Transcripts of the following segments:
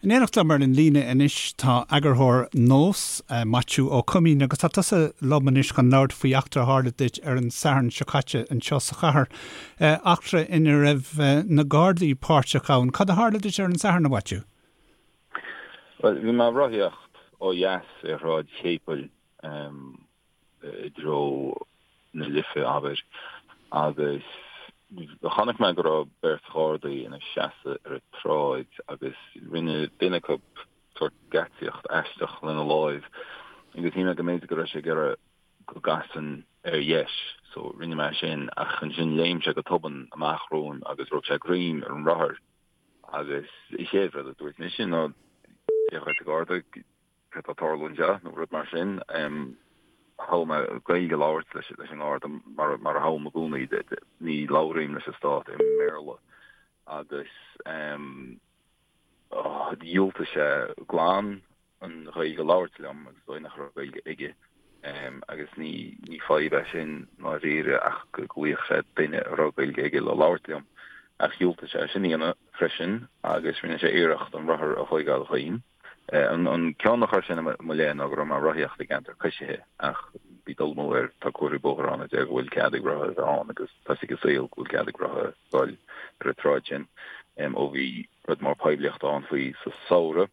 In éineacht liom ar an líne anois tá eagarthóir Nós, Maitiú Ó Coimín, agus tá tusa liom anois chun labhairt faoi eachtra a tharla duit ar an Satharn seo caite anseo sa chathair, eachtra ina raibh na Gardaí páirteach ann. Cad a tharla duit ar an Satharn, a Mhaitiú? Bhuel, bhí mé ag rothaíocht ó dheas ar Shráid Chéipil i dtreo na Life, abair, agus chonaic mé go raibh beirt Ghardaí ina seasamh ar an tsráid agus rinne duine acu sórt geaitsíocht aisteach lena láimh agus shíl mé go mb'fhéidir go raibh sé ag iarraidh go gcasfainn ar dheis so rinne mé sin ach ansin léim sé go tobann amach romham agus rug sé greim ar an rothar agus an chéad rud a dúirt mise ná Dia dhuit a Gharda, céard tá ag tarlú anseo nó rud mar sin. Thogh mé Gaeilge a labhairt leis an nGarda mar a thoghaim i gcónaí, ní labhraím leis an stát i mBéarla agus dhiúltaigh sé glan an Ghaeilge a labhairt liom agus is dóigh nach raibh Gaeilge aige agus ní ní fadhb é sin ndáiríre ach go nglaofadh sé duine a raibh Gaeilge aige le labhairt liom ach dhiúltaigh sé sin a dhéanamh freisin agus rinne sé iarracht an rothar a thóigeáil dhíom. An cion a chuir sé i mo leith ná go raibh mé ag rothaíocht i gceantar coisithe ach bhí dul amú air, tá comharthaí bóthair ann a deir go bhfuil cead ag rothaithe a bheith ann agus tá 'fhios ag an saol go bhfuil cead ag rothaithe dul ar an tsráid sin ó bhí rud mór poiblíochta ann faoi sa samhradh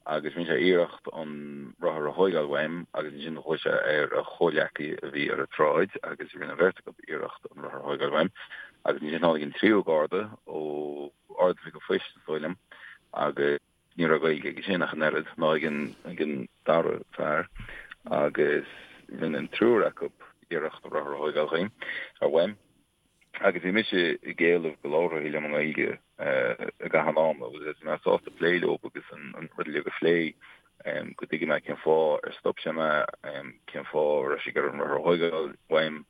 agus rinne sé iarracht an rothar a thóigeáil uaim agus ansin ghlaoigh sé ar a chomhghleacaí a bhí ar an tsráid agus rinne an bheirt acu iarracht an rothar a thóigeáil uaim agus ansin tháinig an tríú garda ó Ard-Oifig an Phoist is dóigh liom agus Ní raibh Gaeilge aige sin ach an oiread, ná ag an ag an dara fear, agus rinne an triúr acu iarracht an rothar a thóigeáil dhíom, ar uaim. Agus bhí mise ag éileamh go labharfaí liom i nGaeilge i gcaitheamh an ama, agus bhí mé sásta plé leo agus an rud uilig a phlé, go dtuigfidh mé cén fáth ar stop sé mé, cén fáth a raibh sé ag iarraidh an rothar a thóigeáil uaim,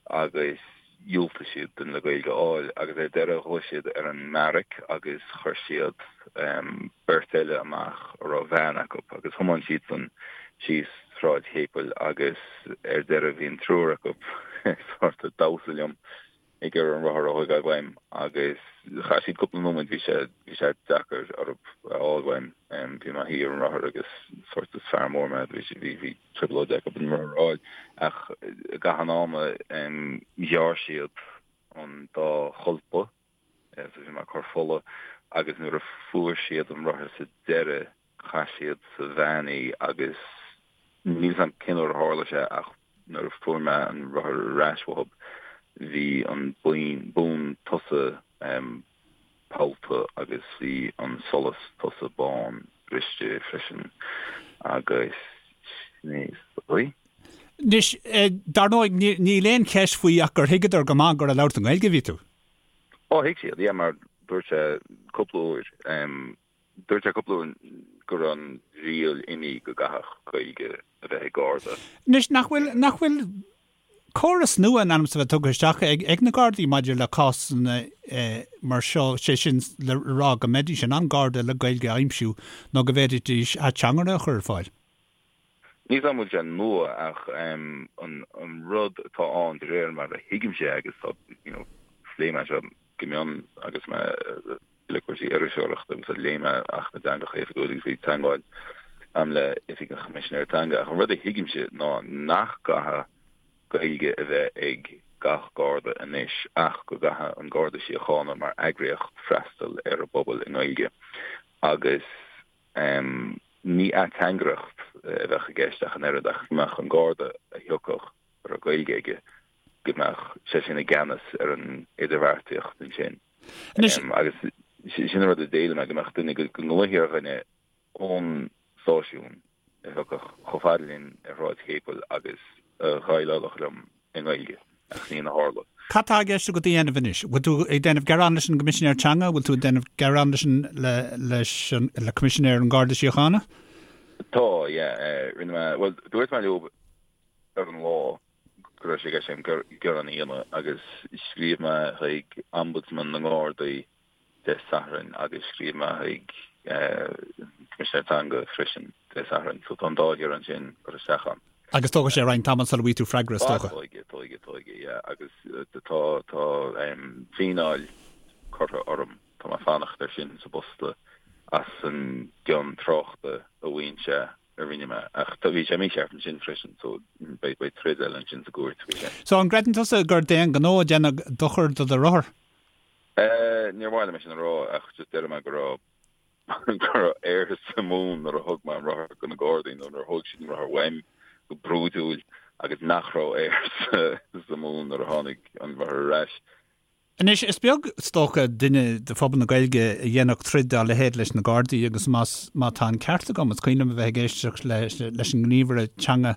agus dhiúltaigh siad duine le Gaeilge a fháil agus ar deireadh ghlaoigh siad ar an mbeairic agus chuir siad beirt eile amach a raibh veain acu agus thiomáin siadsan síos Sráid Chéipil agus ar deireadh bhí an triúr acu sort ag damhsa liom ag iarraidh an rothar a thóigeáil uaim agus chaith siad cúpla nóiméad bhí sé bhí sé deacair orthu a fháil uaim bhí mé i mo shuí ar an rothar agus sort is fear mór mé bhí bhí bhí trioblóid acu an rothar a fháil ach i gcaitheamh an ama ghearr siad an dá cholpa so bhí mé ag cur fola agus nuair a fuair siad an rothar sa deireadh chaith siad sa veain í agus níl 'fhios a'm cén uair a tharla sé ach nuair a fuair mé an rothar ar ais uathub bhí an bonn tosaigh pollta agus bhí an solas tosaigh bán briste freisin agus sin é is dóigh. Anois, dar ndóigh, níl aon cheist faoi ach gur thuigeadar go maith gur ag labhairt i nGaeilge a bhí tú. Ó, thuig siad, yeah, mar dúirt sé cúpla uair, dúirt sé cúpla uair go raibh an riail imithe go gcaithfeadh Gaeilge a bheith ag Garda. Anois, nach bhfuil, nach bhfuil córas nua in ainm is a bheith tugtha isteach ag na Gardaí maidir le cásanna mar seo, sé sin le rá go mbeidís in ann Garda le Gaeilge a aimsiú nó go bhféadfaidís ateangaire a chur ar fáil. Níl 's a'm an bhfuil sé nua ach an rud atá ann de réir mar a thuigimse é agus tá, you know, phléigh mé seo go mion agus mé le cúrsaí iriseoireachta agus léigh mé Acht na dTeangacha Oifigiúla agus bhí teagmháil a'm le Oifig an Choimisinéara Teanga ach an rud a thuigimse ná nach gcaithfidh Gaeilge a bheith ag gach Garda anois ach go gcaithfidh an Garda Síochána mar eagraíocht freastal ar an bpobal i nGaeilge agus ní ateangaireacht a bheadh i gceist ach an oiread ach go mbeadh an Garda a thiocfadh a raibh Gaeilge aige go mbeadh sé sin i gceannas ar an idirbheartaíocht ansin. Anois. Agus sin an rud a d'éiligh mé, go mbeadh duine, go nglaofaí ar dhuine ón stáisiún a thiocfadh chomh fada linn ar Shráid Chéipil agus a dhéileálfadh liom i nGaeilge, ach ní hin a tharla. Cad tá i gceist agat a dhéanamh anois? Bhfuil tú ag déanamh gearán leis an gCoimisinéir Teanga? Bhfuil tú ag déanamh gearán leis an, le, leis an, le Coimisinéir an Gharda Síochána? Tá, yeah. Rinne mé, bhuel, dúirt mé leo ar an lá go raibh sé i gceist agam gearán a dhéanamh agus scríobh mé chuig Ombudsman na nGardaí Dé Sathairn agus scríobh mé chuig Coimisinéir Teanga freisin Dé Sathairn. So tá an dá ghearán sin curtha isteach agam. Agus tógfaidh sé roinnt tamall sula bhfaighidh tú freagra, is dócha. Tógfaidh, tógfaidh, tógfaidh, yeah. Agus tá, tá fíneáil curtha orm. Tá mé ag fanacht air sin sa bpost. As an gcion tráchta a mhaíonn sé a rinne mé. Ach tá, bhí sé mícheart ansin freisin so beidh, beidh troid eile ansin sa gcúirt faoi sin. So an gcreideann tusa gur d'aon ghnó a deineadh dochar do do rothar? Eh, níor mhaith liom é sin a rá ach just déarfaidh mé go raibh, go raibh aer sa mhún nuair a thug mé an rothar do na Gardaí nó nuair a thóg siad an rothar uaim go brúidiúil agus nach raibh aer sa, sa mhún nuair a tháinig an rothar ar ais. Anois, is beag, is dócha, duine de phobal na Gaeilge a dhéanfadh troid dá leithéid leis na Gardaí agus más, má tá an ceart agam, is cuimhin liom a bheith ag éisteacht leis an ngníomhaire teanga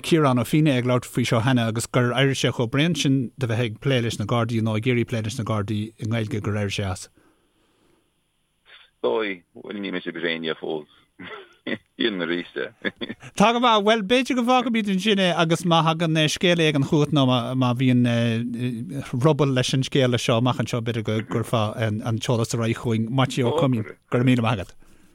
Ciarán Ó Fianna ag labhairt faoi seo cheana agus gur éirigh sé chomh bréan sin de bheith ag plé leis na Gardaí nó ag iarraidh plé leis na Gardaí i nGaeilge gur éirigh sé as. Dóigh, bhuel níl mise bréan fós. Déanfainn arís é. Tá go maith. Bhuel, b'fhéidir go bhfágfaimid ansin é agus má thagann scéal éigin chugat nó má bhíonn ruball leis an scéal seo amach anseo, b'fhéidir go gcuirfeá an t-eolas ar aghaidh chugainn. Maitiú Ó Coimín, go raibh míle maith agat.